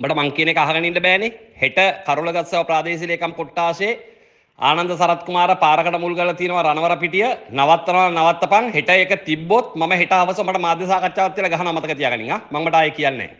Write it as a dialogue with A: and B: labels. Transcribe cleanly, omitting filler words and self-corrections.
A: උඹට මං කියන එක අහගෙන ඉන්න බෑනේ. හෙට කරුලගස්සව ප්‍රාදේශීය ලේකම් කොට්ටාශේ ආනන්ද සරත් කුමාර පාරකට මුල් කරලා තියෙනවා රණවර පිටිය නවත්තනවා නවත්තපන්. හෙට ඒක තිබ්බොත් මම හෙට හවස මට මාධ්‍ය සාකච්ඡාවක් තියලා ගහනවා මතක තියාගනින්. ආ මං මට ආයේ කියන්නේ නැහැ.